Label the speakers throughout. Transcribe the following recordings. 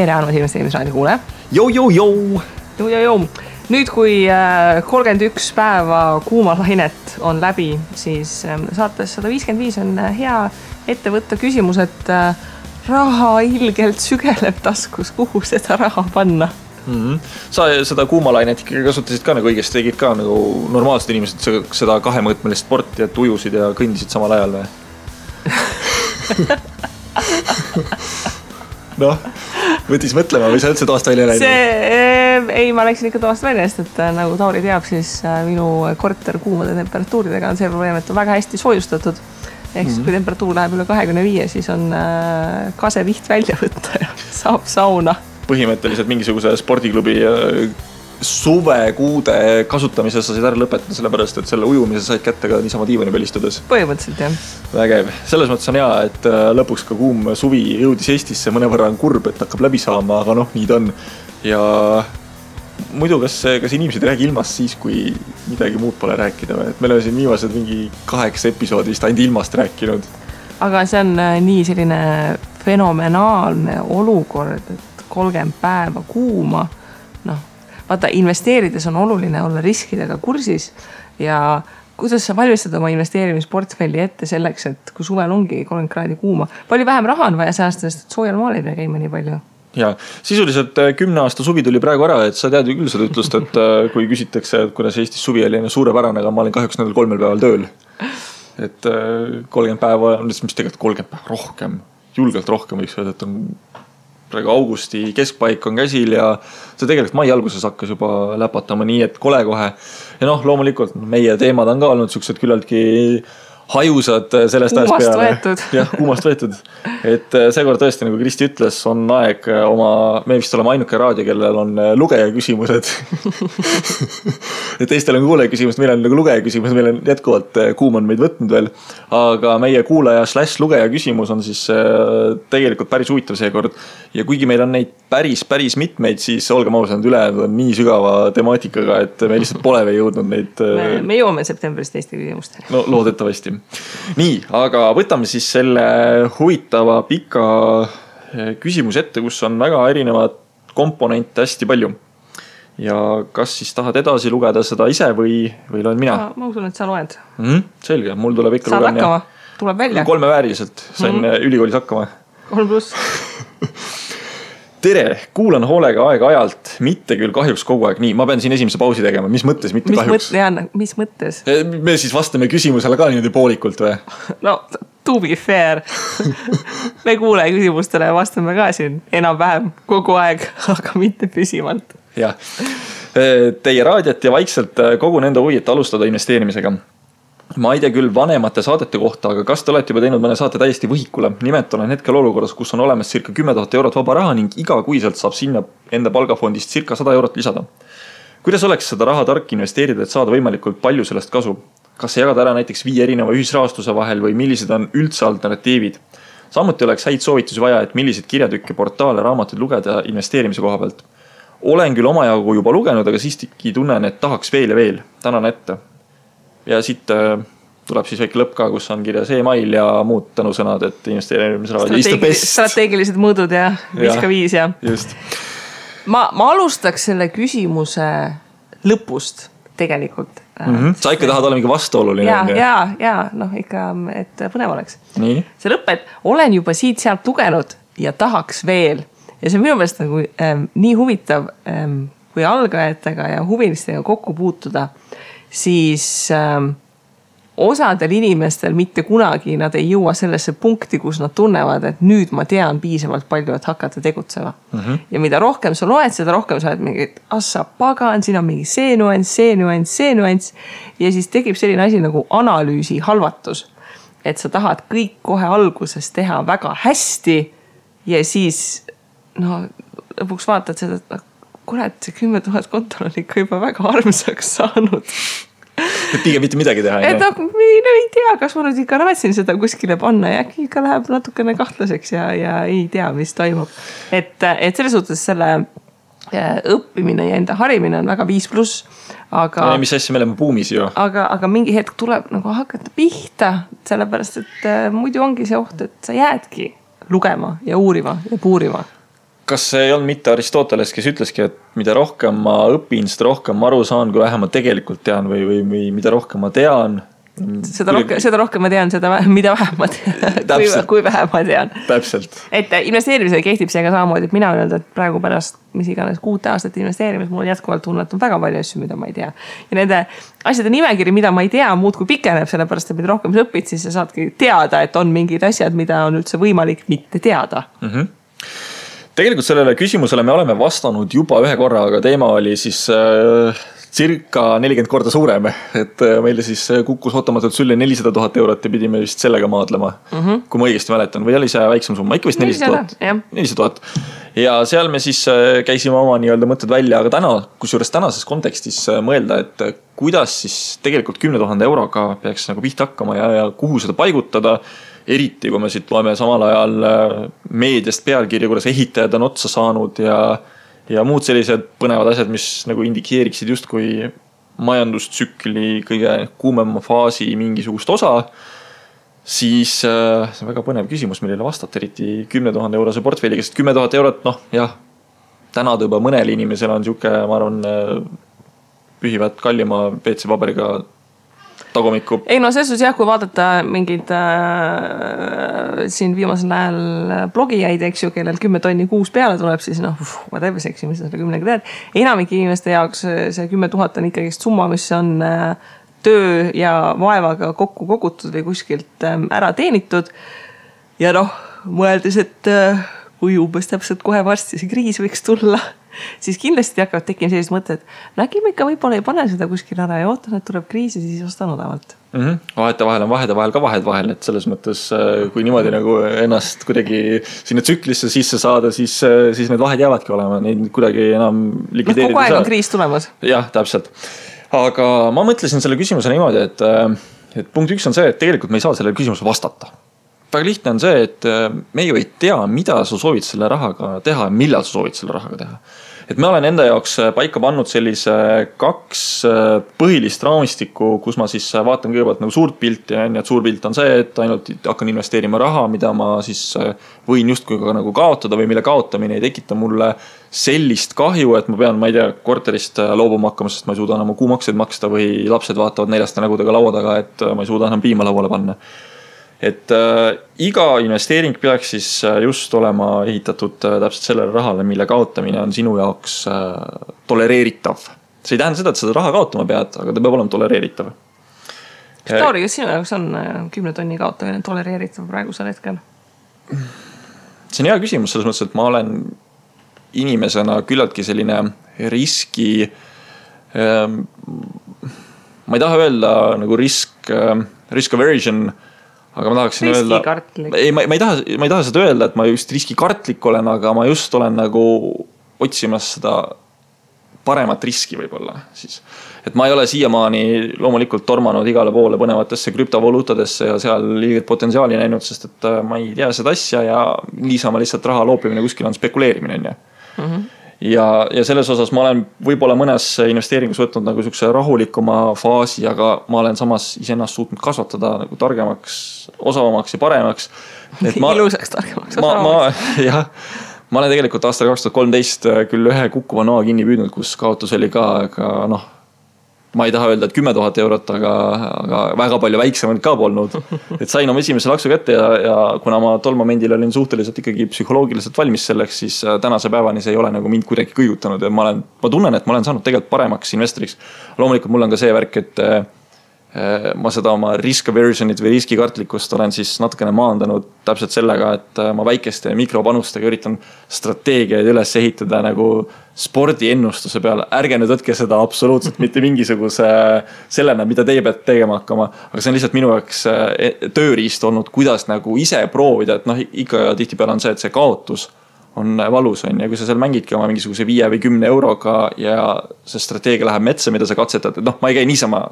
Speaker 1: tere, Andmas investeerimisraadio kuule.
Speaker 2: Jou.
Speaker 1: Nüüd, kui 31 päeva kuumalainet on läbi, siis saates 155 on hea ette võtta küsimus, et raha ilgelt sügeleb taskus, kuhu seda raha panna?
Speaker 2: Sa seda kuumalainet ikkagi kasutasid ka nagu õigesti, tegid ka nagu normaalsed inimesed seda kahemõõtmelist sporti, et ujusid ja kõndisid samal ajal või? Noh, võttis mõtlema või sa üldse toast välja läinud?
Speaker 1: Ei, ma läksin ikka toast välja, sest et nagu Tauri teab, siis minu korter kuumade temperatuuridega on see probleem, et on väga hästi soojustatud. Ehk siis, kui temperatuur läheb üle 25, siis on kaseviht välja võtta ja saab sauna.
Speaker 2: Põhimõtteliselt mingisuguse spordiklubi suvekuude kasutamise sa said ära lõpetada, sellepärast, et selle ujumise said kätte ka niisama diivani peal istudes.
Speaker 1: Põhimõtteliselt, jah.
Speaker 2: Vägev. Selles mõttes on hea, et lõpuks ka kuum suvi jõudis Eestisse, mõnevõrra on kurb, et hakkab läbi saama, aga noh, nii ta on. Ja muidu, kas inimesed ei räägi ilmast siis, kui midagi muud pole rääkida või? Et meil on siin viimased mingi 8 episoodist ainult ilmast rääkinud.
Speaker 1: Aga see on nii selline fenomenaalne olukord, et 30 päeva kuuma, vaata, investeerides on oluline olla riskidega kursis ja kuidas sa valmistad oma investeerimisportfelli ette selleks, et kui suvel ongi 30 kraadi kuuma, palju vähem raha on vaja säästa, sest soojal maal ei pea käima nii palju.
Speaker 2: Ja sisuliselt 10 aasta suvi tuli praegu ära, et sa tead ju küll seda ütlust, et kui küsitakse, et kuidas Eestis suvi oli suurepärane, aga ma olin kahjuks nendel 3 päeval tööl. Et 30 päeva, mis tegelikult 30 päeva rohkem, julgelt rohkem võiks öelda, et on praegu augusti keskpaik on käsil ja see tegelikult mai alguses hakkas juba läpatama nii, et kole kohe. Ja loomulikult meie teemad on ka olnud siuksed küllaltki hajusad sellest ajast peale.
Speaker 1: Võetud.
Speaker 2: Jah, kuumast võetud. Et seekord tõesti, nagu Kristi ütles, on aeg me vist oleme ainuke raadio, kellel on lugeja küsimused. Et teistel on kuulaja küsimus, meil on nagu lugeja küsimus, meil on jätkuvalt kuum on meid võtnud veel. Aga meie kuulaja / lugeja küsimus on siis tegelikult päris huvitav seekord. Ja kuigi meil on neid päris mitmeid, siis olgem ausad, ülejäänud on nii sügava temaatikaga, et me lihtsalt pole veel jõudnud neid.
Speaker 1: Me jõuame septembris teiste küsimuste.
Speaker 2: No loodetavasti. Nii, aga võtame siis selle huvitava pika küsimuse ette, kus on väga erinevad komponente hästi palju. Ja kas siis tahad edasi lugeda seda ise või loen mina?
Speaker 1: Ma usun, et sa loed.
Speaker 2: Selge, mul tuleb ikka
Speaker 1: saad hakkama, tuleb välja.
Speaker 2: 3 vääriliselt, sain ülikoolis hakkama.
Speaker 1: 3+.
Speaker 2: Tere, kuulan hoolega aeg-ajalt, mitte küll kahjuks kogu aeg nii. Ma pean siin esimese pausi tegema. Mis mõttes, mitte kahjuks?
Speaker 1: Mis mõttes?
Speaker 2: Me siis vastame küsimusele ka niimoodi poolikult või?
Speaker 1: No, to be fair. Me kuule küsimustele ja vastame ka siin enam-vähem kogu aeg, aga mitte püsivalt.
Speaker 2: Jah. Teie raadiat ja vaikselt kogu nende huvi, et alustada investeerimisega. Ma ei tea küll vanemate saadete kohta, aga kas te olete juba teinud mõne saate täiesti võhikule? Nimelt olen hetkel olukorras, kus on olemas circa 10 000 eurot vaba raha ning iga kuiselt saab sinna enda palgafondist circa 100 eurot lisada. Kuidas oleks seda raha tark investeerida, et saada võimalikult palju sellest kasu? Kas see jagada ära näiteks 5 erineva ühisrahastuse vahel või millised on üldse alternatiivid? Samuti oleks häid soovitusi vaja, et millised kirjatükke, portaale, raamatuid lugeda investeerimise koha pealt. Olen küll omajagu juba lugenud, aga siiski tunnen, et tahaks veel ja veel. Tänan ette. Ja siit tuleb siis väike lõpp ka, kus on kirjas e-mail ja muud tänusõnad, et investeerimisraadio is the best.
Speaker 1: Strateegilised mõõdud ja 5 ja.
Speaker 2: Just.
Speaker 1: Ma alustaks selle küsimuse lõpust tegelikult.
Speaker 2: Sa ikka tahad olla mingi vastuoluline.
Speaker 1: Ja, ikka, et põnev oleks.
Speaker 2: Nii.
Speaker 1: See lõpp, et olen juba siit sealt lugenud ja tahaks veel. Ja see on minu meelest nagu nii huvitav, kui algajatega ja huvilistega kokku puutuda, siis osadel inimestel mitte kunagi nad ei jõua sellesse punkti, kus nad tunnevad, et nüüd ma tean piisavalt palju, et hakata tegutsema. Ja mida rohkem sa loed, seda rohkem sa oled mingi, et assa pagan, siin on mingi see nuanss. Ja siis tekib selline asi nagu analüüsi halvatus. Et sa tahad kõik kohe alguses teha väga hästi ja siis lõpuks vaatad seda, et kurat, see 10 000 kontol on ikka juba väga armsaks saanud.
Speaker 2: Et pigem mitte midagi teha.
Speaker 1: Et ei tea, kas ma nüüd ikka raatsin seda kuskile panna ja äkki ikka läheb natukene kahtlaseks ja ei tea, mis toimub. Et selles suhtes selle õppimine ja enda harimine on väga 5+. Aga,
Speaker 2: mis asja me oleme buumis ju.
Speaker 1: Aga mingi hetk tuleb nagu hakata pihta, sellepärast, et muidu ongi see oht, et sa jäädki lugema ja uurima ja puurima.
Speaker 2: kas see ei olnud mitte Aristoteles, kes ütleski, et mida rohkem ma õpin, seda rohkem ma aru saan, kui vähem ma tegelikult tean või mida rohkem ma tean.
Speaker 1: Seda rohkem ma tean, mida vähem ma tean, kui vähem ma tean.
Speaker 2: Täpselt.
Speaker 1: Et investeerimisega kehtib see ka samamoodi, et mina öelda, et praegu pärast mis iganes 6 aastat investeerimis, mul on jätkuvalt tunne, et on väga palju asju, mida ma ei tea. Ja nende asjade nimekiri, mida ma ei tea, muud kui pikeneb, sellepärast, et mida rohkem sa õpid, siis sa saadki teada, et on mingid asjad, mida on üldse võimalik mitte teada.
Speaker 2: Tegelikult sellele küsimusele me oleme vastanud juba ühe korra, aga teema oli siis circa 40 korda suurem, et meile siis kukkus ootamatult sülle 400 000 eurot ja pidime vist sellega maadlema, kui ma õigesti mäletan, või oli see väiksem summa, ikka vist 400 000. Ja seal me siis käisime oma nii-öelda mõtted välja, aga kusjuures tänases kontekstis mõelda, et kuidas siis tegelikult 10 000 euroga peaks nagu pihta hakkama ja kuhu seda paigutada, eriti kui me siit loeme samal ajal meediast pealkirja, kuidas ehitajad on otsa saanud ja muud sellised põnevad asjad, mis nagu indikeeriksid justkui majandustsükli kõige kuumema faasi mingisugust osa, siis see on väga põnev küsimus, millele vastata, eriti 10 000 eurose portfelliga, sest 10 000 eurot, täna juba mõnel inimesel on siuke, ma arvan, pühivad kallima PC-paberiga tagumikku.
Speaker 1: Ei selles suhtes jah, kui vaadata mingid siin viimasel ajal blogijaid, eks ju, kellel 10 tonni kuus peale tuleb, siis ma teebeseksi, mis sa selle 10-ga teed. Enamik inimeste jaoks see 10 000 on ikkagi summa, mis on töö ja vaevaga kokku kogutud või kuskilt ära teenitud. Ja mõeldes, et kui umbes täpselt kohe varsti see kriis võiks tulla, siis kindlasti hakkavad tekkima sellised mõtted, äkki ma ikka võib-olla ei pane seda kuskil ära ja ootan, et tuleb kriis ja siis ostan odavalt.
Speaker 2: Vahete vahel on vahel ka vahed vahel, et selles mõttes, kui niimoodi nagu ennast kuidagi sinna tsüklisse sisse saada, siis need vahed jäävadki olema, neid kuidagi enam likvideerida.
Speaker 1: Kogu aeg on kriis tulemas.
Speaker 2: Jah, täpselt. Aga ma mõtlesin selle küsimuse niimoodi, et punkt 1 on see, et tegelikult me ei saa selle küsimuse vastata. Väga lihtne on see, et me ju ei tea, mida sa soovid selle rahaga teha ja millal sa soovid selle rahaga teha. Et me olen enda jaoks paika pannud sellise 2 põhilist raamistikku, kus ma siis vaatan kõigepealt nagu suurt pilti ja et suur pilt on see, et ainult hakkan investeerima raha, mida ma siis võin justkui ka nagu kaotada või mille kaotamine ei tekita mulle sellist kahju, et ma pean, ma ei tea, korterist loobuma hakkama, sest ma ei suuda enam kuumakseid maksta või lapsed vaatavad neljaste nägudega laua taga, et ma ei suuda enam piima lauale panna. Et iga investeering peaks siis just olema ehitatud täpselt sellele rahale, mille kaotamine on sinu jaoks tolereeritav. See ei tähenda seda, et seda raha kaotama pead, aga ta peab olema tolereeritav.
Speaker 1: Tauri, kas sinu jaoks on 10 tonni kaotamine tolereeritav praegusel hetkel?
Speaker 2: See on hea küsimus selles mõttes, et ma olen inimesena küllaltki selline riski, ma ei taha öelda nagu risk aversion, aga ma tahaksin öelda, ma ei taha seda öelda, et ma just riskikartlik olen, aga ma just olen nagu otsimas seda paremat riski võib-olla siis. Et ma ei ole siiamaani loomulikult tormanud igale poole põnevatesse krüptovaluutadesse ja seal liiget potentsiaali näinud, sest et ma ei tea seda asja ja niisama lihtsalt raha loopimine kuskil on spekuleerimine. Ja selles osas ma olen võib-olla mõnes investeeringus võtnud nagu sukse rahulikuma faasi, aga ma olen samas iseennast suutnud kasvatada nagu targemaks, osavamaks ja paremaks.
Speaker 1: Ilusaks targemaks, osavamaks.
Speaker 2: Ma olen tegelikult aastal 2013 küll ühe kukkuva noa kinni püüdnud, kus kaotus oli ka, aga ma ei taha öelda, et 10 000 eurot, aga väga palju väiksemalt ka polnud. Et sain oma esimese laksu kätte ja kuna ma tol momendil olin suhteliselt ikkagi psühholoogiliselt valmis selleks, siis tänase päevani see ei ole nagu mind kuidagi kõigutanud ja ma tunnen, et ma olen saanud tegelikult paremaks investoriks. Loomulikult mul on ka see värk, et ma seda oma risk aversionit või riskikartlikkust olen siis natukene maandanud täpselt sellega, et ma väikeste mikropanustega üritan strateegiaid üles ehitada nagu spordiennustuse peale. Ärge nüüd võtke seda absoluutselt mitte mingisuguse sellena, mida teie peate tegema hakkama, aga see on lihtsalt minu jaoks tööriist olnud, kuidas nagu ise proovida, et ikka tihtipeale on see, et see kaotus on valus on ja kui sa seal mängidki oma mingisuguse 5 või 10 euroga ja see strateegia läheb metsa, mida sa katsetad, et ma ei käi niisama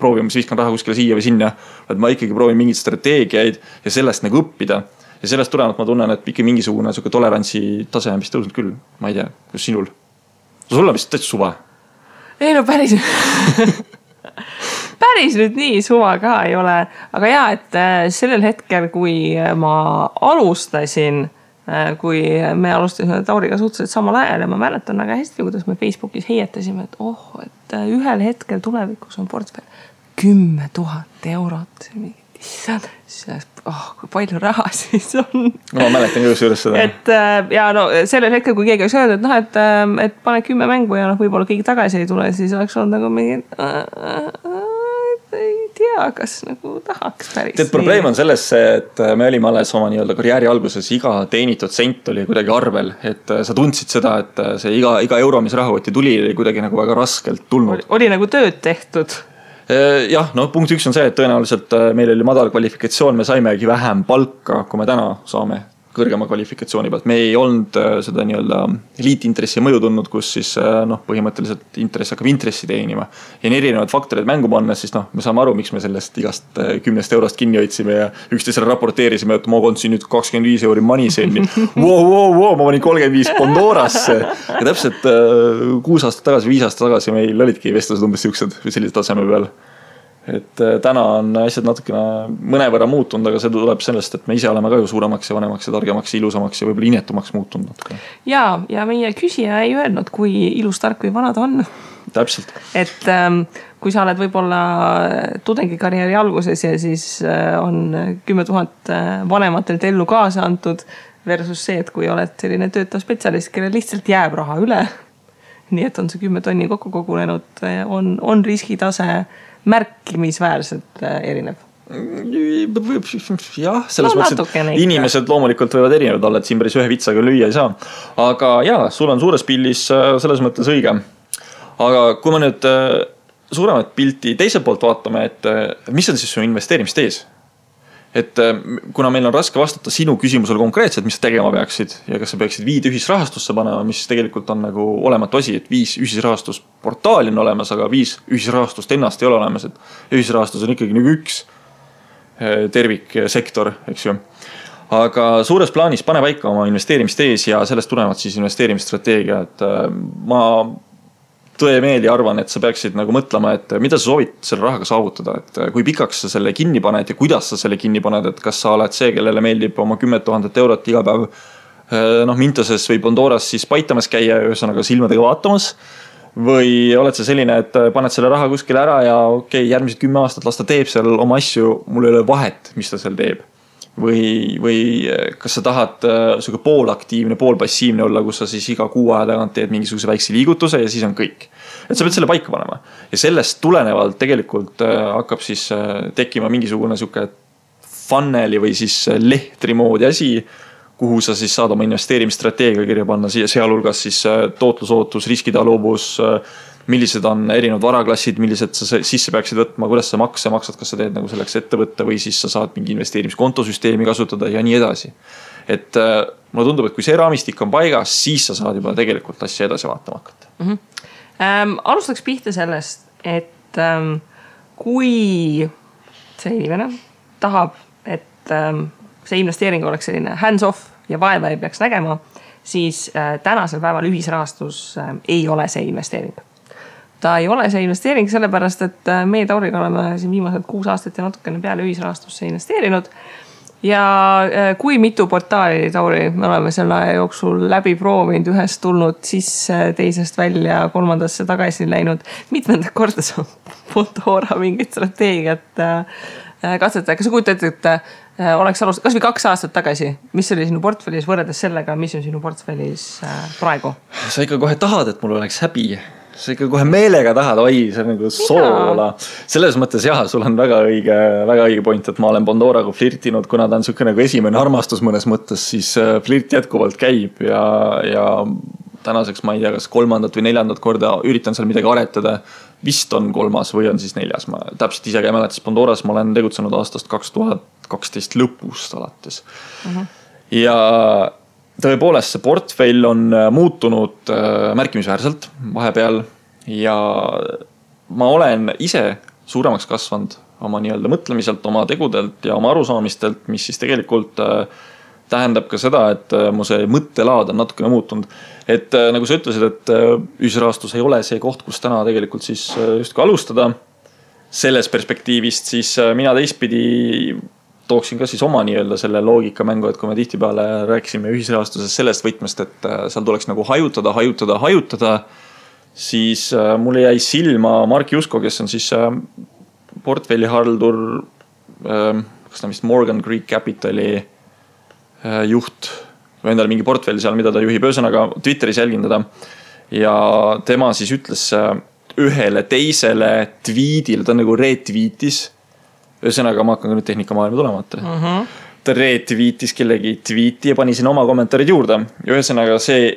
Speaker 2: proovimas, viskan raha kuskile siia või sinna, et ma ikkagi proovin mingid strateegiaid ja sellest nagu õppida. Ja sellest tulenevalt ma tunnen, et ikka mingisugune tolerantsi tase on vist tõusnud küll. Ma ei tea, kus sinul? Sul on vist täitsa suva.
Speaker 1: Ei päris. Päris nüüd nii suva ka ei ole. Aga et sellel hetkel, kui ma alustasin kui me alustasime Tauriga suhteliselt samal ajal ja ma mäletan väga hästi, kuidas me Facebookis heietasime, et ühel hetkel tulevikus on portfell 10 000 eurot. Kui palju raha siis on.
Speaker 2: No ma mäletan ka juures seda.
Speaker 1: Ja sellel hetkel, kui keegi oleks öelnud, et pane 10 mängu ja võib-olla keegi tagasi ei tule, siis oleks olnud nagu mingi ei tea, kas nagu tahaks päris.
Speaker 2: Tead, probleem on selles, et me olime alles oma nii-öelda karjääri alguses, iga teenitud sent oli kuidagi arvel, et sa tundsid seda, et see iga euro, mis rahakoti tuli, oli kuidagi nagu väga raskelt tulnud.
Speaker 1: Oli nagu tööd tehtud.
Speaker 2: Jah, punkt 1 on see, et tõenäoliselt meil oli madal kvalifikatsioon, me saimegi vähem palka, kui me täna saame kõrgema kvalifikatsiooni pealt. Me ei olnud seda nii-öelda liitintressi mõju tundnud, kus siis põhimõtteliselt intress hakkab intressi teenima. Ja erinevad faktorid mängu panna, siis me saame aru, miks me sellest igast 10 eurost kinni hoidsime ja üksteisele raporteerisime, et ma kondsin nüüd 25 euri Moneyzen'i. Ma panin 35 Pandorasse. Ja täpselt 6 aastat tagasi, 5 aastat tagasi meil olidki vestlused umbes siuksed või sellise taseme peal. Et täna on asjad natukene mõnevõrra muutunud, aga see tuleb sellest, et me ise oleme ka ju suuremaks ja vanemaks ja targemaks ja ilusamaks ja võib-olla inetumaks muutunud natuke.
Speaker 1: Ja meie küsija ei öelnud, kui ilus, tark või vana ta on.
Speaker 2: Täpselt.
Speaker 1: Et kui sa oled võib-olla tudengikarjääri alguses ja siis on 10 000 vanematelt ellu kaasa antud versus see, et kui oled selline töötav spetsialist, kelle lihtsalt jääb raha üle, nii et on see 10 tonni kokku kogunenud, on riskitase märkimisväärselt erinev.
Speaker 2: Jah, selles mõttes, et inimesed loomulikult võivad erinevad olla, et siin päris ühe vitsaga lüüa ei saa. Aga jah, sul on suures pildis selles mõttes õige. Aga kui me nüüd suuremat pilti teiselt poolt vaatame, et mis on siis su investeerimist ees? Et kuna meil on raske vastata sinu küsimusele konkreetselt, mis sa tegema peaksid ja kas sa peaksid 5 ühisrahastusse panema, mis tegelikult on nagu olematu asi, et 5 ühisrahastusportaali on olemas, aga 5 ühisrahastust ennast ei ole olemas, et ühisrahastus on ikkagi nagu üks terviksektor, eks ju. Aga suures plaanis pane paika oma investeerimist ees ja sellest tulevad siis investeerimisstrateegia, et ma tõemeeli arvan, et sa peaksid nagu mõtlema, et mida sa soovid selle rahaga saavutada, et kui pikaks sa selle kinni paned ja kuidas sa selle kinni paned, et kas sa oled see, kellele meeldib oma 10 000 eurot iga päev Mintoses või Pandoras siis paitamas käia ja ühesõnaga silmadega vaatamas või oled sa selline, et paned selle raha kuskile ära ja järgmised 10 aastat las ta teeb seal oma asju, mul ei ole vahet, mis ta seal teeb. Või kas sa tahad poolaktiivne, poolpassiivne olla, kus sa siis iga 6 aja tagant teed mingisuguse väikse liigutuse ja siis on kõik. Et sa pead selle paika panema. Ja sellest tulenevalt tegelikult hakkab siis tekkima mingisugune siuke funneli või siis lehtri moodi asi, kuhu sa siis saad oma investeerimisstrateegia kirja panna, sealhulgas siis tootlusootus, riskitaluvus, millised on erinevad varaklassid, millised sa sisse peaksid võtma, kuidas sa makse maksad, kas sa teed nagu selleks ettevõtte või siis sa saad mingi investeerimiskontosüsteemi kasutada ja nii edasi. Et mulle tundub, et kui see raamistik on paigas, siis sa saad juba tegelikult asja edasi vaatama hakata.
Speaker 1: Alustaks pihta sellest, et kui see inimene tahab, et see investeering oleks selline hands-off ja vaeva ei peaks nägema, siis tänasel päeval ühisrahastus ei ole see investeering. Ta ei ole see investeering sellepärast, et meie Tauriga oleme siin viimased 6 aastat ja natukene peale ühisrahastusse investeerinud. Ja kui mitu portaali Tauri me oleme selle aja jooksul läbi proovinud, ühest tulnud sisse, teisest välja, 3. tagasi läinud, mitmendat korda see Pandora mingit strateegiat katsetada. Kas sa kujutad, et oleks alust, kas või 2 aastat tagasi, mis oli sinu portfellis võrreldes sellega, mis on sinu portfellis praegu?
Speaker 2: Sa ikka kohe tahad, et mul oleks häbi. Sa ikka kohe meelega tahad, see on nagu soola. Selles mõttes jah, sul on väga õige point, et ma olen Pandoraga flirtinud, kuna ta on siuke nagu esimene armastus mõnes mõttes, siis flirt jätkuvalt käib ja tänaseks ma ei tea, kas 3. või 4. korda üritan seal midagi aretada. Vist on 3. või on siis 4. Ma täpselt ise ei mäleta, siis Pandoras ma olen tegutsenud aastast 2012 lõpust alates. Ja tõepoolest see portfell on muutunud märkimisväärselt vahepeal ja ma olen ise suuremaks kasvanud oma nii-öelda mõtlemiselt, oma tegudelt ja oma arusaamistelt, mis siis tegelikult tähendab ka seda, et mu see mõttelaad on natukene muutunud. Et nagu sa ütlesid, et ühisrahastus ei ole see koht, kus täna tegelikult siis just ka alustada selles perspektiivist, siis mina teistpidi tooksin ka siis oma nii-öelda selle loogikamängu, et kui me tihtipeale rääkisime ühisrahastuses sellest võtmest, et seal tuleks nagu hajutada, siis mulle jäi silma Mark Jusko, kes on siis portfellihaldur, kas ta vist Morgan Creek Capitali juht või endale mingi portfelli seal, mida ta juhib, ühesõnaga Twitteris jälgin teda ja tema siis ütles ühele teisele tweetile, ta nagu retweetis, ühesõnaga ma hakkan ka nüüd tehnikamaailma tulema, ta retweetis kellegi tweeti ja pani sinna oma kommentaarid juurde ja ühesõnaga see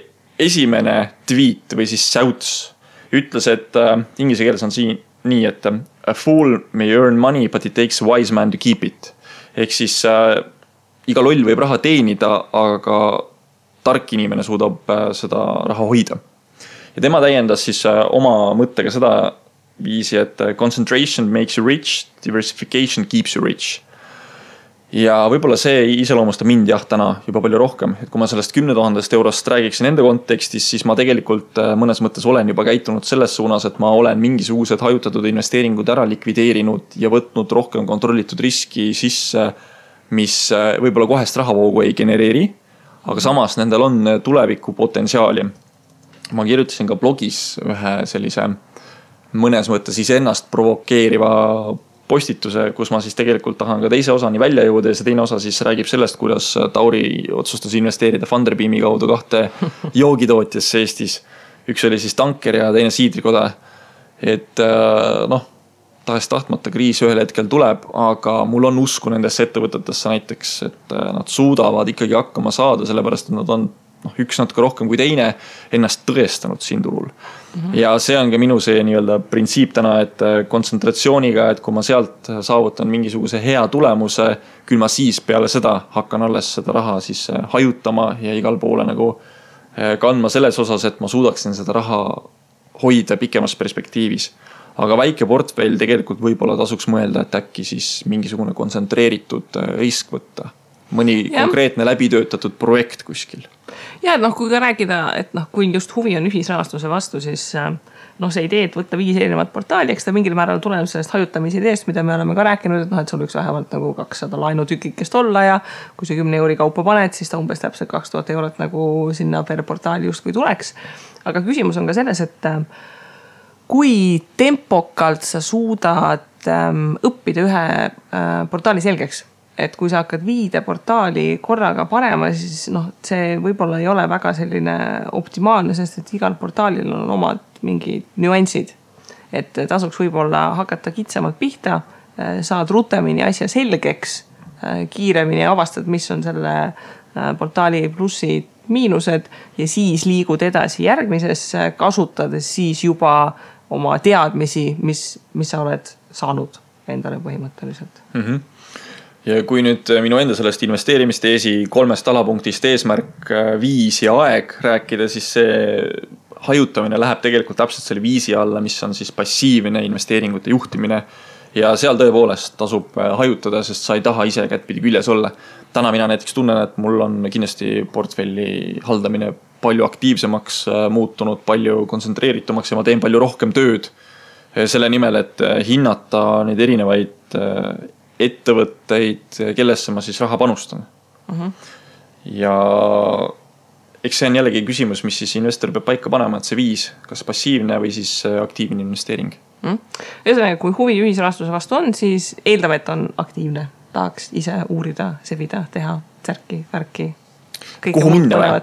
Speaker 2: esimene tweet või siis shouts ütles, et inglise keeles on siin nii, et a fool may earn money but it takes a wise man to keep it ehk siis iga loll võib raha teenida, aga tark inimene suudab seda raha hoida. Ja tema täiendas siis oma mõttega seda viisi, et concentration makes you rich, diversification keeps you rich. Ja võib-olla see iseloomustab mind täna juba palju rohkem, et kui ma sellest 10 000 eurost räägiksin enda kontekstis, siis ma tegelikult mõnes mõttes olen juba käitunud selles suunas, et ma olen mingisugused hajutatud investeeringud ära likvideerinud ja võtnud rohkem kontrollitud riski sisse, mis võib-olla kohest rahavoogu ei genereeri, aga samas nendel on tuleviku potentsiaali. Ma kirjutasin ka blogis ühe sellise mõnes mõttes iseennast provokeeriva postituse, kus ma siis tegelikult tahan ka teise osani välja jõuda ja see teine osa siis räägib sellest, kuidas Tauri otsustas investeerida Funderbeami kaudu 2 joogitootjasse Eestis. Üks oli siis tanker ja teine siidrikoda. Et tahest tahtmata kriis ühel hetkel tuleb, aga mul on usku nendesse ettevõtetesse näiteks, et nad suudavad ikkagi hakkama saada, sellepärast et nad on üks natuke rohkem kui teine ennast tõestanud siin turul. Ja see on ka minu see nii-öelda printsiip täna, et kontsentratsiooniga, et kui ma sealt saavutan mingisuguse hea tulemuse, küll ma siis peale seda hakkan alles seda raha siis hajutama ja igal poole nagu kandma selles osas, et ma suudaksin seda raha hoida pikemas perspektiivis. Aga väike portfell tegelikult võib-olla tasuks mõelda, et äkki siis mingisugune kontsentreeritud risk võtta. Mõni konkreetne läbitöötatud projekt kuskil.
Speaker 1: Ja kui ka rääkida, et kui just huvi on ühisrahastuse vastu, siis see idee, et võtta 5 erinevat portaali, eks ta mingil määral tuleb sellest hajutamise ideest, mida me oleme ka rääkinud, et sul üks vähemalt nagu 200 lainutükikest olla ja kui see 10 euri kaupa paned, siis ta umbes täpselt 2000 eurot nagu sinna per portaali just kui tuleks. Aga küsimus on ka selles, et kui tempokalt sa suudad õppida ühe portaali selgeks, et kui sa hakkad 5 portaali korraga panema, siis see võib-olla ei ole väga selline optimaalne, sest et igal portaalil on omad mingid nüansid. Et tasuks võib-olla hakata kitsamalt pihta, saad rutemini asja selgeks, kiiremini avastad, mis on selle portaali plussid, miinused ja siis liigud edasi järgmisesse, kasutades siis juba oma teadmisi, mis sa oled saanud endale põhimõtteliselt.
Speaker 2: Ja kui nüüd minu enda sellest investeerimisteesi 3 alapunktist eesmärk 5 ja aeg rääkida, siis see hajutamine läheb tegelikult täpselt selle 5 alla, mis on siis passiivne investeeringute juhtimine. Ja seal tõepoolest tasub hajutada, sest sa ei taha ise kättpidi küljes olla. Täna mina näiteks tunnen, et mul on kindlasti portfelli haldamine palju aktiivsemaks muutunud, palju kontsentreeritumaks ja ma teen palju rohkem tööd selle nimel, et hinnata neid erinevaid ettevõtteid, kellesse ma siis raha panustan. Ja eks see on jällegi küsimus, mis siis investor peab paika panema, et see 5, kas passiivne või siis aktiivne investeering.
Speaker 1: Ühesõnaga, kui huvi ühisrahastuse vastu on, siis eeldame, et on aktiivne. Tahaks ise uurida, sebida, teha, särki, värki.
Speaker 2: Kuhu minna või?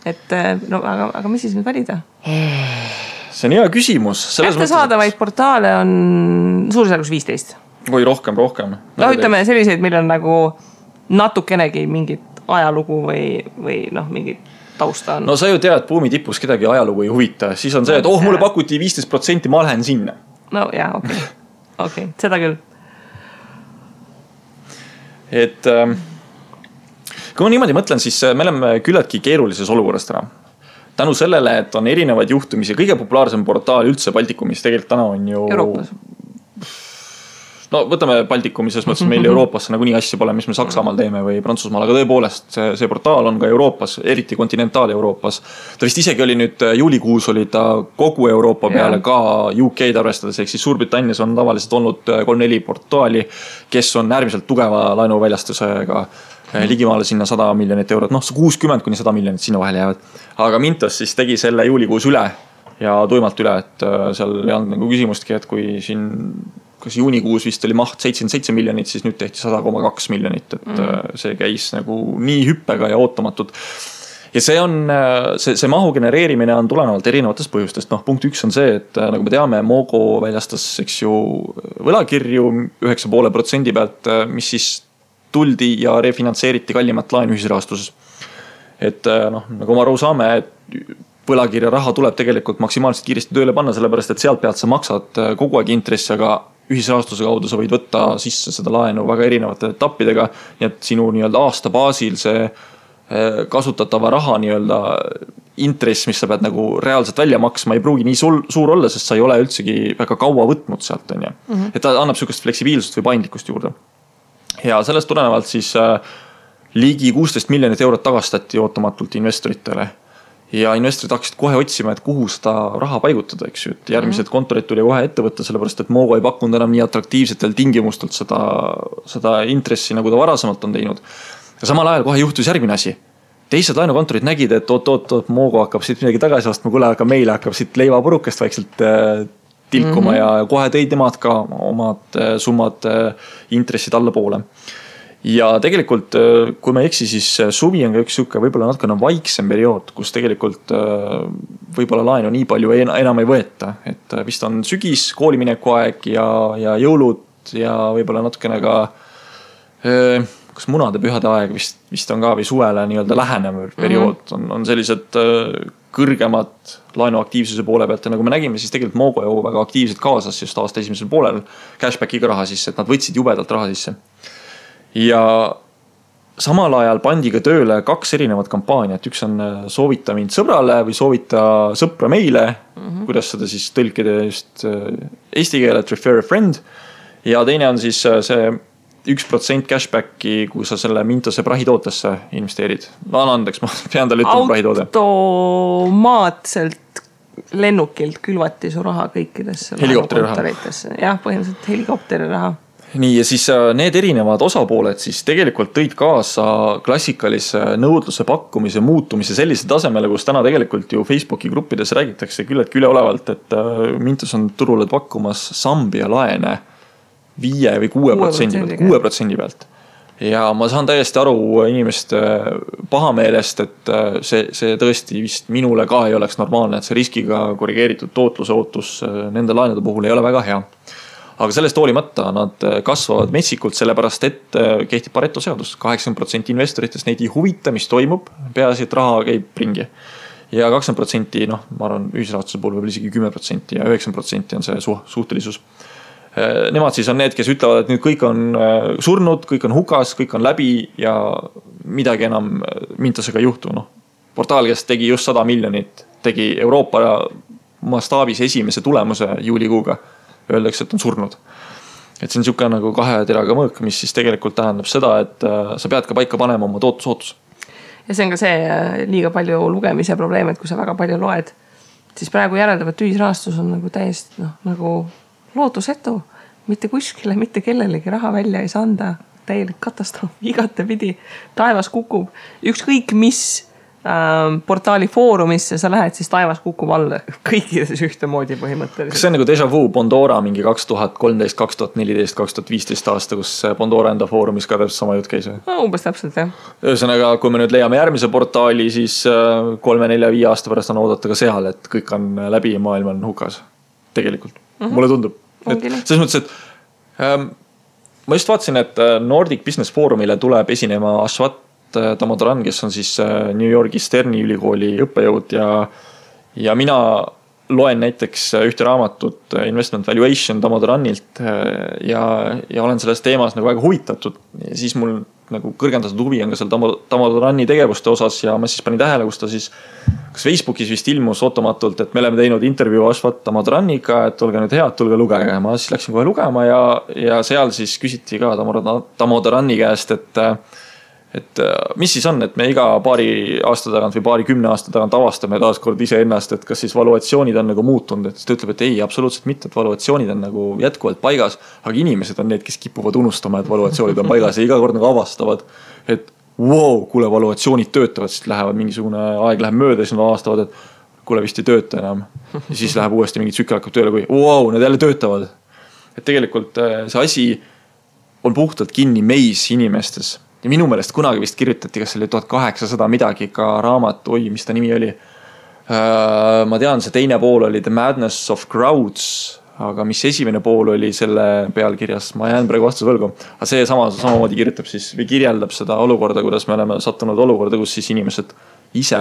Speaker 1: Et aga mis siis nüüd valida?
Speaker 2: See on hea küsimus.
Speaker 1: Kätte saadavaid portaale on suurusjärgus 15.
Speaker 2: Või rohkem.
Speaker 1: Ütleme selliseid, meil on nagu natukenegi mingit ajalugu või mingit tausta on.
Speaker 2: No sa ju tead, buumi tipus kedagi ajalugu ei huvita. Siis on see, et mulle pakuti 15%, ma lähen sinna.
Speaker 1: No jaa, okei, seda küll.
Speaker 2: Et kui ma niimoodi mõtlen, siis me oleme küllaltki keerulises olukorras täna. Tänu sellele, et on erinevaid juhtumisi, kõige populaarsem portaal üldse Baltikumis tegelikult täna on ju
Speaker 1: Euroopas.
Speaker 2: no võtame Baltikumi, selles mõttes meil Euroopasse nagunii asja pole, mis me Saksamaal teeme või Prantsusmaal, aga tõepoolest see portaal on ka Euroopas, eriti kontinentaal-Euroopas. Ta vist isegi oli nüüd juulikuus oli ta kogu Euroopa peale ka UK-d arvestades, ehk siis Suurbritannias on tavaliselt olnud 3-4 portaali, kes on äärmiselt tugeva laenuväljastusega ligimaale sinna 100 miljonit eurot, 60 kuni 100 miljonit sinna vahele jäävad. Aga Mintos siis tegi selle juulikuus üle ja tuimalt üle, et seal ei olnud nagu küsimustki, et kui siin kas juunikuus vist oli maht 77 miljonit, siis nüüd tehti 100,2 miljonit, et see käis nagu nii hüppega ja ootamatult. Ja see on, see mahu genereerimine on tulenevalt erinevatest põhjustest. Punkt 1 on see, et nagu me teame, Mogo väljastas, eks ju, võlakirju 9,5% pealt, mis siis tuldi ja refinantseeriti kallimat laenu ühisrahastuses. Et nagu ma aru saame, et võlakirja raha tuleb tegelikult maksimaalselt kiiresti tööle panna, sellepärast et sealt pealt sa maksad kogu aeg intressi, aga ühisrahastuse kaudu sa võid võtta sisse seda laenu väga erinevate etappidega, nii et sinu nii-öelda aasta baasil see kasutatava raha nii-öelda intress, mis sa pead nagu reaalselt välja maksma, ei pruugi nii suur olla, sest sa ei ole üldsegi väga kaua võtnud sealt, on ju. Et ta annab sükest fleksibiilsust või paindlikkust juurde. Ja sellest tulenevalt siis ligi 16 miljonit eurot tagastati ootamatult investoritele. Ja investorid hakkasid kohe otsima, et kuhu seda raha paigutada, eks ju, et järgmised kontorid tuli kohe ette võtta, sellepärast et Mogo ei pakkunud enam nii atraktiivsetel tingimustelt seda intressi, nagu ta varasemalt on teinud. Ja samal ajal kohe juhtus järgmine asi. Teised laenukontorid nägid, et oot, Mogo hakkab siit midagi tagasi ostma, kuule, aga meile hakkab siit leivapurukest vaikselt tilkuma ja kohe tõid nemad ka omad summad intressid alla poole. Ja tegelikult, kui ma eksi, siis suvi on ka üks siuke võib-olla natukene vaiksem periood, kus tegelikult võib-olla laenu nii palju enam ei võeta. Et vist on sügis, koolimineku aeg ja jõulud ja võib-olla natukene ka kas munade pühade aeg vist on ka või suvele nii-öelda lähenev periood on sellised kõrgemad laenuaktiivsuse poole pealt. Ja nagu me nägime, siis tegelikult Mogo ju väga aktiivselt kaasas just aasta esimesel poolel cashbackiga raha sisse, et nad võtsid jubedalt raha sisse. Ja samal ajal pandi ka tööle 2 erinevat kampaaniat. Üks on soovita mind sõbrale või soovita sõpra meile, kuidas seda siis tõlkida just eesti keelet, refer a friend. Ja teine on siis see 1% cashbacki, kui sa selle Mintose prahitootesse investeerid. Ma annan andeks, ma pean talle ütlema prahitoode.
Speaker 1: Automaatselt lennukilt külvati su raha kõikidesse
Speaker 2: helikopteri raha.
Speaker 1: Jah, põhimõtteliselt helikopteri raha.
Speaker 2: Nii, ja siis need erinevad osapooled siis tegelikult tõid kaasa klassikalise nõudluse pakkumise muutumise sellise tasemele, kus täna tegelikult ju Facebooki gruppides räägitakse küll, et üleolevalt, et Mintos on turule pakkumas Sambia laene 5 või 6% pealt. Ja ma saan täiesti aru inimeste pahameelest, et see tõesti vist minule ka ei oleks normaalne, et see riskiga korrigeeritud tootluse ootus nende laenude puhul ei ole väga hea. Aga sellest hoolimata nad kasvavad metsikult, sellepärast et kehtib Pareto seadus. 80% investoritest neid ei huvita, mis toimub, peaasi, et raha käib ringi. Ja 20%, ma arvan, ühisrahastuse puhul võib isegi 10% ja 9% on see suhtelisus. Nemad siis on need, kes ütlevad, et nüüd kõik on surnud, kõik on hukas, kõik on läbi ja midagi enam Mintosega ei juhtu. Portaal, kes tegi just 100 miljonit, tegi Euroopa mastaabis esimese tulemuse juulikuuga. Öeldakse, et on surnud. Et see on siuke nagu 2 teraga mõõk, mis siis tegelikult tähendab seda, et sa pead ka paika panema oma tootlusootus.
Speaker 1: Ja see on ka see liiga palju lugemise probleem, et kui sa väga palju loed, siis praegu järeldavat ühisrahastus on nagu täiesti nagu lootusetu. Mitte kuskile, mitte kellelegi raha välja ei saa anda. Täielik katastroof, igate pidi. Taevas kukub. Ükskõik mis portaali foorumisse sa lähed, siis taevas kukub alla kõikides ühtemoodi põhimõtteliselt.
Speaker 2: Kas see on nagu déjà vu Pandora mingi 2013, 2014, 2015 aasta, kus Pandora enda foorumis ka täpselt sama jutt käis?
Speaker 1: Umbes täpselt, jah.
Speaker 2: Ühesõnaga, kui me nüüd leiame järgmise portaali, siis 3, 4, 5 aasta pärast on oodata ka seal, et kõik on läbi ja maailm on hukas. Tegelikult. Mulle tundub. Selles mõttes, et ma just vaatasin, et Nordic Business Forumile tuleb esinema Ashwat Damodaran, kes on siis New Yorgi Sterni ülikooli õppejõud ja mina loen näiteks ühte raamatut Investment Valuation Damodaranilt ja olen selles teemas nagu väga huvitatud. Ja siis mul nagu kõrgendatud huvi on ka seal Tamodarani tegevuste osas ja ma siis panin tähele, kus ta siis kas Facebookis vist ilmus ootamatult, et me oleme teinud intervjuu Ashvat Tamodaraniga, et olge nüüd head, tulge lugege. Ma siis läksin kohe lugema ja seal siis küsiti ka Tamodarani käest, et mis siis on, et me iga paari aasta tagant või paari 10 aasta tagant avastame taaskord ise ennast, et kas siis valuatsioonid on nagu muutunud, et ta ütleb, et ei, absoluutselt mitte, et valuatsioonid on nagu jätkuvalt paigas, aga inimesed on need, kes kipuvad unustama, et valuatsioonid on paigas ja iga kord nagu avastavad, et wow, kuule, valuatsioonid töötavad, siis lähevad mingisugune aeg läheb mööda, siis nad avastavad, et kuule, vist ei tööta enam. Ja siis läheb uuesti mingi tsükkel hakkab tööle, kui wow, need jälle töötavad. Et tegelikult see asi on puhtalt kinni meis inimestes. Ja minu meelest kunagi vist kirjutati, kas oli 1800 midagi ka raamat, mis ta nimi oli. Ma tean, see teine pool oli The Madness of Crowds, aga mis esimene pool oli selle pealkirjas, ma jään praegu vastuse võlgu. Aga see samamoodi kirjutab siis või kirjeldab seda olukorda, kuidas me oleme sattunud olukorda, kus siis inimesed ise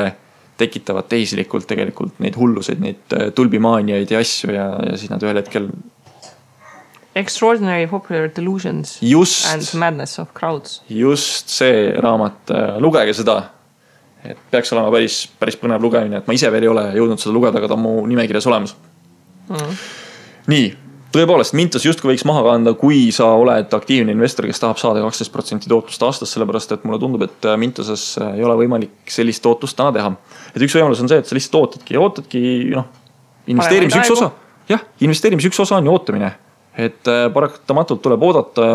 Speaker 2: tekitavad tehislikult tegelikult neid hulluseid, neid tulbimaaniaid ja asju ja siis nad ühel hetkel
Speaker 1: Extraordinary Popular Delusions and Madness of Crowds.
Speaker 2: Just see raamat, lugege seda, et peaks olema päris põnev lugemine, et ma ise veel ei ole jõudnud seda lugeda, aga ta on mu nimekirjas olemas. Nii, tõepoolest, Mintos justkui võiks maha kanda, kui sa oled aktiivne investor, kes tahab saada 12% tootlust aastas, sellepärast et mulle tundub, et Mintoses ei ole võimalik sellist tootlust täna teha. Et üks võimalus on see, et sa lihtsalt ootadki investeerimise üks osa. Jah, investeerimise üks osa on ju ootamine. Et paratamatult tuleb oodata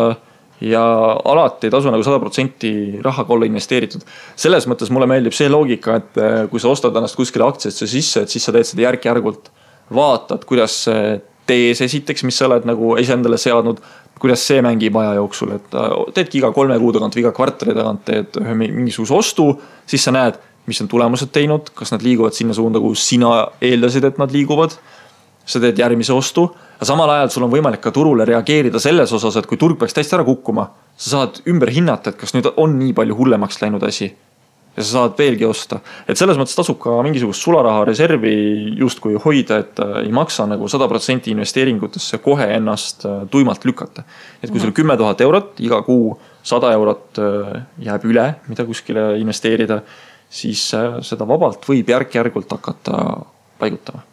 Speaker 2: ja alati ei tasu nagu 100% rahaga olla investeeritud. Selles mõttes mulle meeldib see loogika, et kui sa ostad ennast kuskile aktsiasse sisse, et siis sa teed seda järk-järgult. Vaatad, kuidas tees esiteks, mis sa oled nagu endale seadnud, kuidas see mängib aja jooksul. Et teedki iga 3 kuu tagant või iga kvartali tagant teed mingisuguse ostu, siis sa näed, mis on tulemused teinud, kas nad liiguvad sinna suunda, kus sina eeldasid, et nad liiguvad. Sa teed järgmise ostu, aga samal ajal sul on võimalik ka turule reageerida selles osas, et kui turg peaks täiesti ära kukkuma, sa saad ümber hinnata, et kas nüüd on nii palju hullemaks läinud asi ja sa saad veelgi osta. Et selles mõttes tasub ka mingisugust sularaha reservi justkui hoida, et ei maksa nagu 100% investeeringutesse kohe ennast tuimalt lükata. Et kui sul 10 000 eurot, iga kuu 100 eurot jääb üle, mida kuskile investeerida, siis seda vabalt võib järk-järgult hakata paigutama.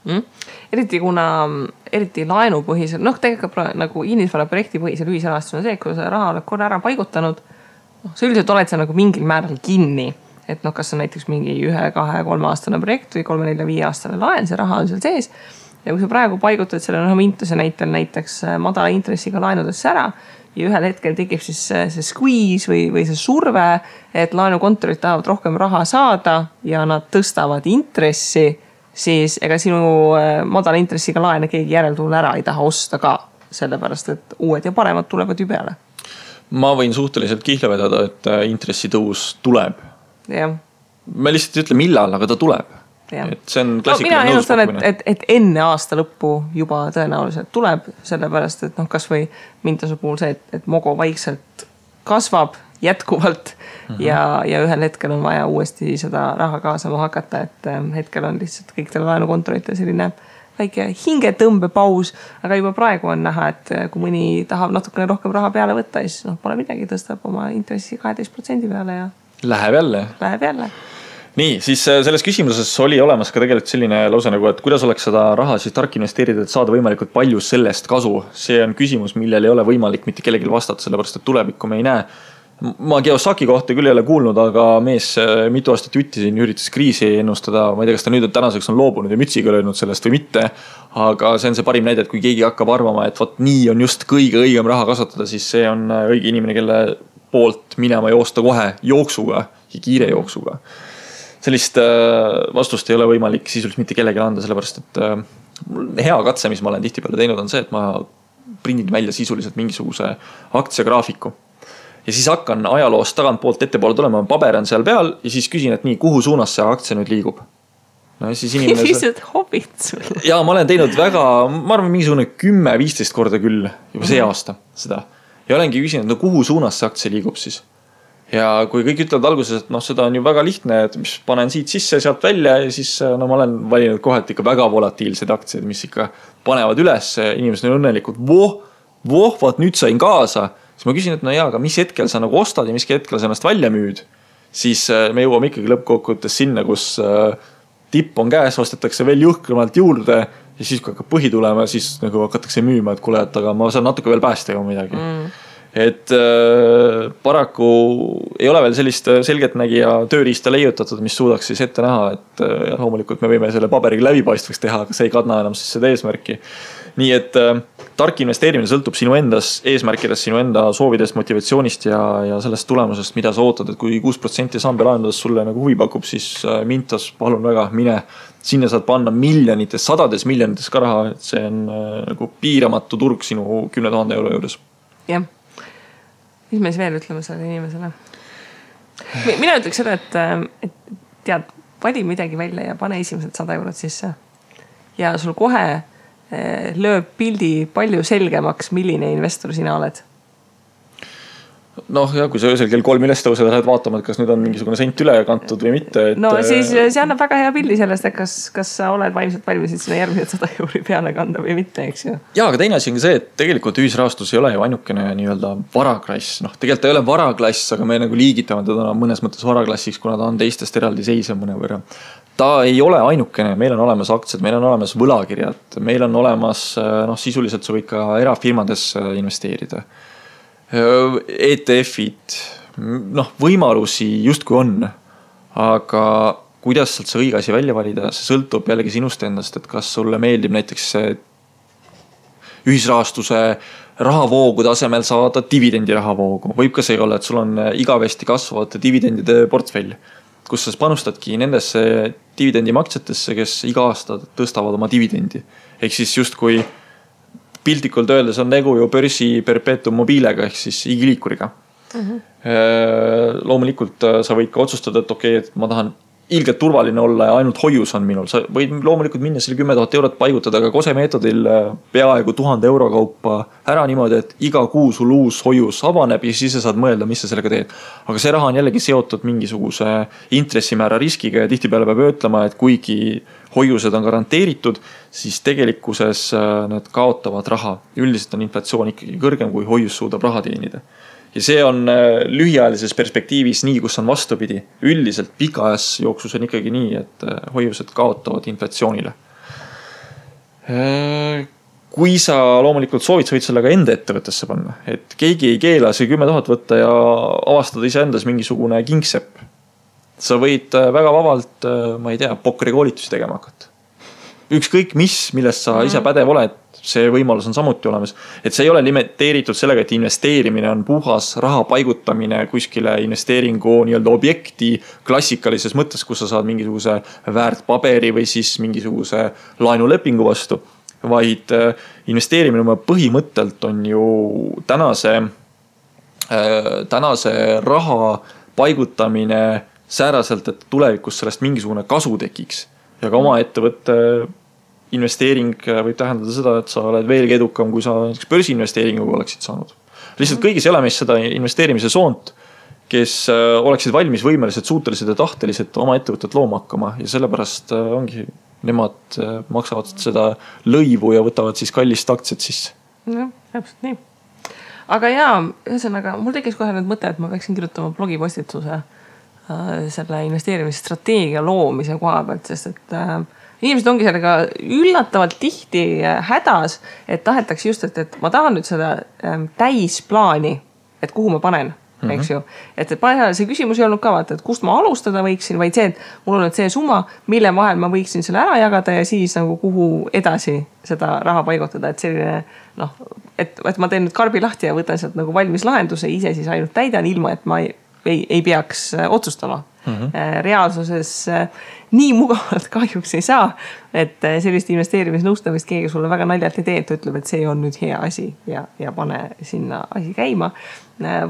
Speaker 1: Eriti laenupõhisel, tegelikult nagu inimesvara projekti põhisel ühisrahastus on see, kui sa raha oled korra ära paigutanud, sa üldiselt oled sa nagu mingil määral kinni, et kas on näiteks mingi 1, 2, 3 aastane projekt või 3, 4, 5 aastane laen, see raha on seal sees ja kui sa praegu paigutad selle Mintose näitel näiteks madala intressiga laenudesse ära ja ühel hetkel tekib siis see squeeze või see surve, et laenukontorid tahavad rohkem raha saada ja nad tõstavad intressi, siis ega sinu madala intressiga laene keegi järeltuule ära ei taha osta ka, sellepärast, et uued ja paremad tulevad ju peale.
Speaker 2: Ma võin suhteliselt kihla vedada, et intressitõus tuleb.
Speaker 1: Ja.
Speaker 2: Ma lihtsalt ei ütle millal, aga ta tuleb. Et see on klassikaline
Speaker 1: nõuspakkumine. Et enne aasta lõppu juba tõenäoliselt tuleb, sellepärast, et kas või Mintose puhul see, et Mogo vaikselt kasvab jätkuvalt ja ühel hetkel on vaja uuesti seda raha kaasama hakata, et hetkel on lihtsalt kõik teile laenukontorite selline väike hingetõmbepaus, aga juba praegu on näha, et kui mõni tahab natukene rohkem raha peale võtta, siis pole midagi, tõstab oma intressi 12% peale ja
Speaker 2: läheb jälle. Nii, siis selles küsimuses oli olemas ka tegelikult selline lause nagu, et kuidas oleks seda raha siis tark investeerida, et saada võimalikult palju sellest kasu. See on küsimus, millel ei ole võimalik mitte kellelgi vastata, sellepärast et tulevikku me ei näe. Ma Kiyosaki kohta küll ei ole kuulnud, aga mees mitu aastat jutti siin üritas kriisi ennustada. Ma ei tea, kas ta nüüd tänaseks on loobunud ja mütsiga löönud sellest või mitte. Aga see on see parim näide, et kui keegi hakkab arvama, et võt nii on just kõige õigem raha kasutada, siis see on õige inimene, kelle poolt minema joosta kohe jooksuga ja kiire jooksuga. Sellist vastust ei ole võimalik sisuliselt mitte kellegi anda, sellepärast et hea katse, mis ma olen tihtipeale teinud, on see, et ma prindin välja sisuliselt mingisuguse aktsiagraafiku. Ja siis hakkan ajaloost tagantpoolt ettepoole tulema, paber on seal peal ja siis küsin, et nii, kuhu suunas see aktsia nüüd liigub. No, siis inimene...
Speaker 1: Lihtsalt hobid sulle.
Speaker 2: Ja ma olen teinud väga, ma arvan, mingisugune 10-15 korda küll juba see aasta seda. Ja olengi küsinud, no kuhu suunas see aktsia liigub siis. Ja kui kõik ütlevad alguses, et seda on ju väga lihtne, et mis panen siit sisse, sealt välja ja siis ma olen valinud kohalt ikka väga volatiilsed aktsiad, mis ikka panevad üles, inimesed on õnnelikud, vaat nüüd sain kaasa siis ma küsin, et no jaa, aga mis hetkel sa nagu ostad ja mis hetkel sa ennast välja müüd, siis me jõuame ikkagi lõppkokkuvõttes sinna, kus tipp on käes, ostetakse veel jõhkramalt juurde ja siis kui hakkab põhi tulema, siis nagu hakatakse müüma, et kuule, et aga ma saan natuke veel päästa ju midagi. Et paraku ei ole veel sellist selgeltnägija tööriista leiutatud, mis suudaks siis ette näha, et loomulikult me võime selle paberiga läbipaistvaks teha, aga see ei kadna enam siis seda eesmärki. Nii et tark investeerimine sõltub sinu endas eesmärkidest, sinu enda soovidest, motivatsioonist ja sellest tulemusest, mida sa ootad, et kui 6% samba laenudest sulle nagu huvi pakub, siis mintas, palun väga, mine. Sinna saad panna miljonites, sadades miljonites ka raha, et see on nagu piiramatu turg sinu 10 000 euro juures.
Speaker 1: Jah. Mis me siis veel ütleme selle inimesele? Mina ütleks seda, et tead, vali midagi välja ja pane esimesed 100 eurot sisse. Ja sul kohe lööb pildi palju selgemaks, milline investor sina oled. Noh, ja kui sa öösel kell 3 üles tõused, lähed vaatama, et kas nüüd on mingisugune sent üle kantud või mitte. Et... No siis see annab väga hea pildi sellest, et kas sa oled vaimselt valmis sinna järgmised 100 euri peale kanda või mitte, eks ju.
Speaker 2: Ja, aga teine asi on see, et tegelikult ühisrahastus ei ole ju ainukene nii-öelda varaklass. Noh, tegelikult ei ole varaklass, aga me nagu liigitame teda mõnes mõttes varaklassiks, kuna ta on teistest eraldi seisev mõne võrra. Ta ei ole ainukene, meil on olemas aktsiad, meil on olemas võlakirjad, meil on olemas, sisuliselt sa võid ka erafirmades investeerida. ETF-id, võimalusi justkui on, aga kuidas sealt see õige asi välja valida, see sõltub jällegi sinust endast, et kas sulle meeldib näiteks ühisrahastuse rahavoogude asemel saada dividendi rahavoogu. Võib ka see olla, et sul on igavesti kasvavate dividendide portfell, kus sa panustadki nendesse dividendimaksjatesse, kes iga aasta tõstavad oma dividendi. Ehk siis justkui piltlikult öeldes on tegu ju börsi perpetuum mobiilega ehk siis igiliikuriga. Loomulikult sa võid ka otsustada, et okei, et ma tahan ilgelt turvaline olla ja ainult hoius on minul. Sa võid loomulikult minna selle 10 000 eurot paigutada, aga kose meetodil peaaegu 1000 euro kaupa ära niimoodi, et iga kuu sul uus hoius avaneb ja siis sa saad mõelda, mis sa sellega teed. Aga see raha on jällegi seotud mingisuguse intressimäära riskiga ja tihtipeale peab ütlema, et kuigi hoiused on garanteeritud, siis tegelikkuses need kaotavad raha. Üldiselt on inflatsioon ikkagi kõrgem, kui hoius suudab raha teenida. Ja see on lühiajalises perspektiivis nii, kus on vastupidi. Üldiselt pikajas jooksus on ikkagi nii, et hoiused kaotavad inflatsioonile. Kui sa loomulikult soovid, sa võid sellega enda ettevõttesse panna. Et keegi ei keela see 10 000 võtta ja avastada ise endas mingisugune kingsepp. Sa võid väga vabalt, ma ei tea, pokrikoolitusi tegema hakata. Ükskõik millest sa ise pädev oled, see võimalus on samuti olemas. Et see ei ole limiteeritud sellega, et investeerimine on puhas raha paigutamine kuskile investeeringu nii-öelda objekti klassikalises mõttes, kus sa saad mingisuguse väärtpaberi või siis mingisuguse laenulepingu vastu. Vaid investeerimine oma põhimõttelt on ju tänase raha paigutamine sääraselt, et tulevikus sellest mingisugune kasu tekiks. Ja ka oma ettevõtte investeering võib tähendada seda, et sa oled veelgi edukam, kui sa börsiinvesteeringuga oleksid saanud. Lihtsalt kõigis elamis seda investeerimise soont, kes oleksid valmis, võimelised, suutelised ja tahtelised oma ettevõtet looma hakkama ja sellepärast ongi nemad maksavad seda lõivu ja võtavad siis kallist aktsiat sisse.
Speaker 1: No, täpselt nii. Aga jaa, ühesõnaga, mul tekkis kohe nüüd mõte, et ma peaksin kirjutama blogipostituse selle investeerimisstrateegia loomise koha pealt, sest et inimesed ongi sellega üllatavalt tihti hädas, et tahetakse just, et ma tahan nüüd seda täisplaani, et kuhu ma panen, eks ju. Et see küsimus ei olnud ka vaata, et kust ma alustada võiksin, vaid see, et mul on nüüd see summa, mille vahel ma võiksin selle ära jagada ja siis nagu kuhu edasi seda raha paigutada, et selline, et ma teen nüüd karbi lahti ja võtan sealt nagu valmis lahenduse, ise siis ainult täidan ilma, et ma ei peaks otsustama. Reaalsuses nii mugavalt kahjuks ei saa, et sellist investeerimisnõustamist keegi sulle väga naljalt ei tee, et ütleb, et see on nüüd hea asi ja pane sinna asi käima,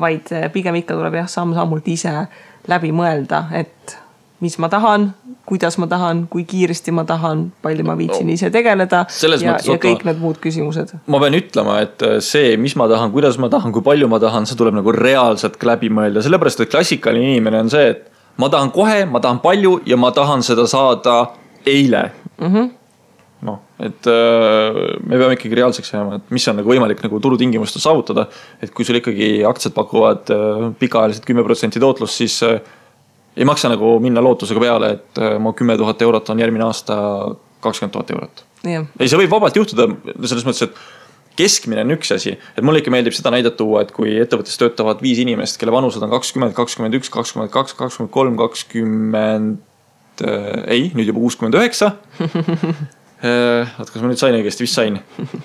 Speaker 1: vaid pigem ikka tuleb samm-sammult ise läbi mõelda, et mis ma tahan, kuidas ma tahan, kui kiiresti ma tahan, palju ma viitsin ise tegeleda ja kõik need muud küsimused.
Speaker 2: Ma pean ütlema, et see, mis ma tahan, kuidas ma tahan, kui palju ma tahan, see tuleb nagu reaalselt läbi mõelda. Sellepärast, et klassikaline inimene on see, et ma tahan kohe, ma tahan palju ja ma tahan seda saada eile. et me peame ikkagi reaalseks jääma, et mis on nagu võimalik nagu turutingimustel saavutada, et kui sul ikkagi aktsiad pakuvad pikaajaliselt 10% tootlust, siis ei maksa nagu minna lootusega peale, et mu 10 000 eurot on järgmine aasta 20 000 eurot. Ei, see võib vabalt juhtuda selles mõttes, et keskmine on üks asi, et mulle ikka meeldib seda näidet tuua, et kui ettevõttes töötavad 5 inimest, kelle vanused on 20, 21, 22, 23, 20, nüüd juba 69. Kas ma nüüd sain õigesti, vist sain.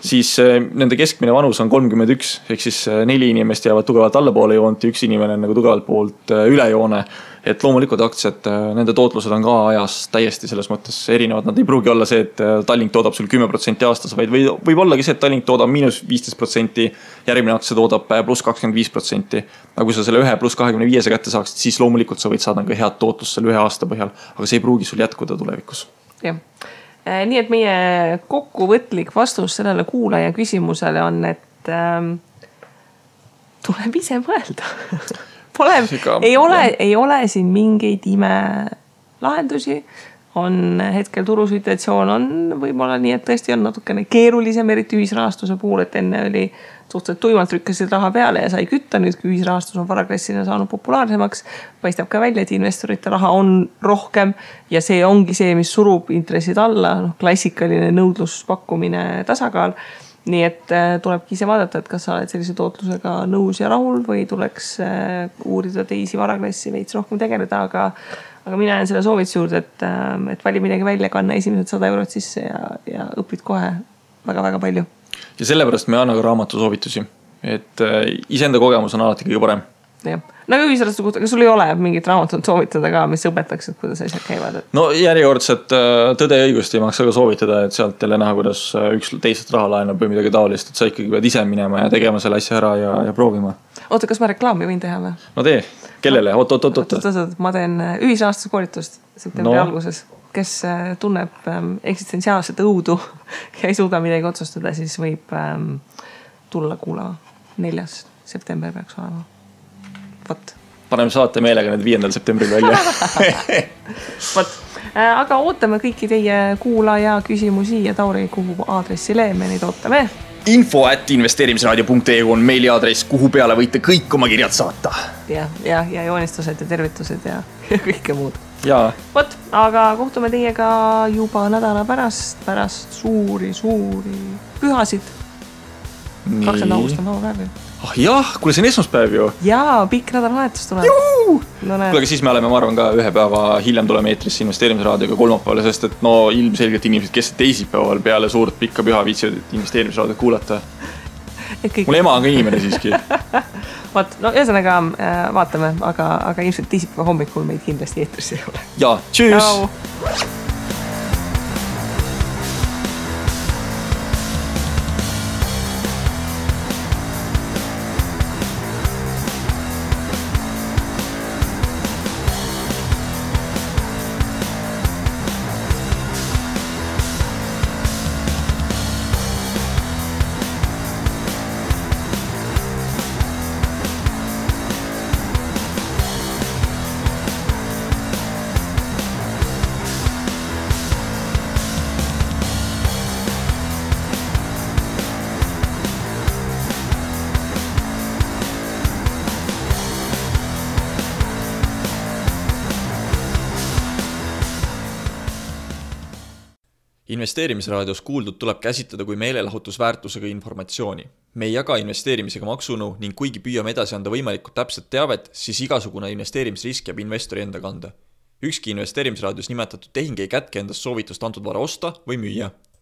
Speaker 2: Siis nende keskmine vanus on 31, ehk siis 4 inimest jäävad tugevalt allapoole joont ja 1 inimene on nagu tugevalt poolt üle joone. Et loomulikult aktsiad, nende tootlused on ka ajas täiesti selles mõttes erinevad. Nad ei pruugi olla see, et Tallink toodab sul 10% aastas, vaid võib ollagi see, et Tallink toodab -15%, järgmine aktsia toodab pluss 25%. Aga kui sa selle 1 pluss 25 kätte saaksid, siis loomulikult sa võid saada ka head tootlust selle 1 aasta põhjal, aga see ei pruugi sul jätkuda tulevikus.
Speaker 1: Jah. Nii et meie kokkuvõtlik vastus sellele kuulaja küsimusele on, et tuleb ise mõelda. Ei ole siin mingeid ime lahendusi. On hetkel turusituatsioon on võib-olla nii, et tõesti on natukene keerulisem, eriti ühisrahastuse puhul, et enne oli suhteliselt tuimalt rükkasid raha peale ja sai kütta. Nüüd, kui ühisrahastus on varaklassina saanud populaarsemaks, paistab ka välja, et investorite raha on rohkem ja see ongi see, mis surub intressid alla, klassikaline nõudluspakkumine tasakaal. Nii et tulebki ise vaadata, et kas sa oled sellise tootlusega nõus ja rahul või tuleks uurida teisi varaklassi veits rohkem tegeleda, aga mina jään selle soovituse juurde, et vali midagi välja, kanna esimesed 100 eurot sisse ja õpid kohe väga-väga palju.
Speaker 2: Ja sellepärast me anna ka raamatu soovitusi, et iseenda kogemus on alati kõige parem.
Speaker 1: Jah. Aga ühisrastu kohta, kas sul ei ole mingit raamatut soovitada ka, mis õpetaks, et kuidas asjad käivad?
Speaker 2: No järjekordselt Tõde ja õigust ei maksa ka soovitada, et sealt jälle näha, kuidas üks teisest raha laenab või midagi taolist, et sa ikkagi pead ise minema ja tegema selle asja ära ja proovima.
Speaker 1: Oota, kas ma reklaami võin teha või?
Speaker 2: No tee, kellele? Oot.
Speaker 1: Ma teen ühisrahastuse koolitust septembri alguses. Kes tunneb eksistentsiaalset õudu ja ei suuda midagi otsustada, siis võib tulla kuulama. 4. september peaks olema. Võt.
Speaker 2: Paneme saate meelega need 5. septembril välja.
Speaker 1: Võt. Aga ootame kõiki teie kuulaja küsimusi ja Tauri, kuhu aadressile me neid ootame.
Speaker 2: info@investeerimisraadio.ee on meiliaadress, kuhu peale võite kõik oma kirjad saata.
Speaker 1: Ja joonistused ja tervitused ja kõike muud.
Speaker 2: Jaa.
Speaker 1: Võt, aga kohtume teiega juba nädala pärast suuri pühasid. 20. august on laupäev.
Speaker 2: Jah, kuule see on esmaspäev ju.
Speaker 1: Jaa, pikk nädalavahetus tuleb.
Speaker 2: Kuule, aga siis me oleme, ma arvan, ka 1 päeva hiljem tuleme eetrisse investeerimisraadioga kolmapäevale, sest et ilmselgelt inimesed, kes teisipäeval peale suurt pikka püha viitsivad investeerimisraadiot kuulata. Mul ema on ka inimene siiski.
Speaker 1: Ühesõnaga vaatame, aga ilmselt teisipäeva hommikul meid kindlasti eetris ei ole.
Speaker 2: Jaa, tšüss! Investeerimisraadios kuuldud tuleb käsitleda kui meelelahutusväärtusega informatsiooni. Me ei jaga investeerimisega maksunõu ning kuigi püüame edasi anda võimalikult täpset teavet, siis igasugune investeerimisrisk jääb investori enda kanda. Ükski investeerimisraadios nimetatud tehing ei kätke endast soovitust antud vara osta või müüa.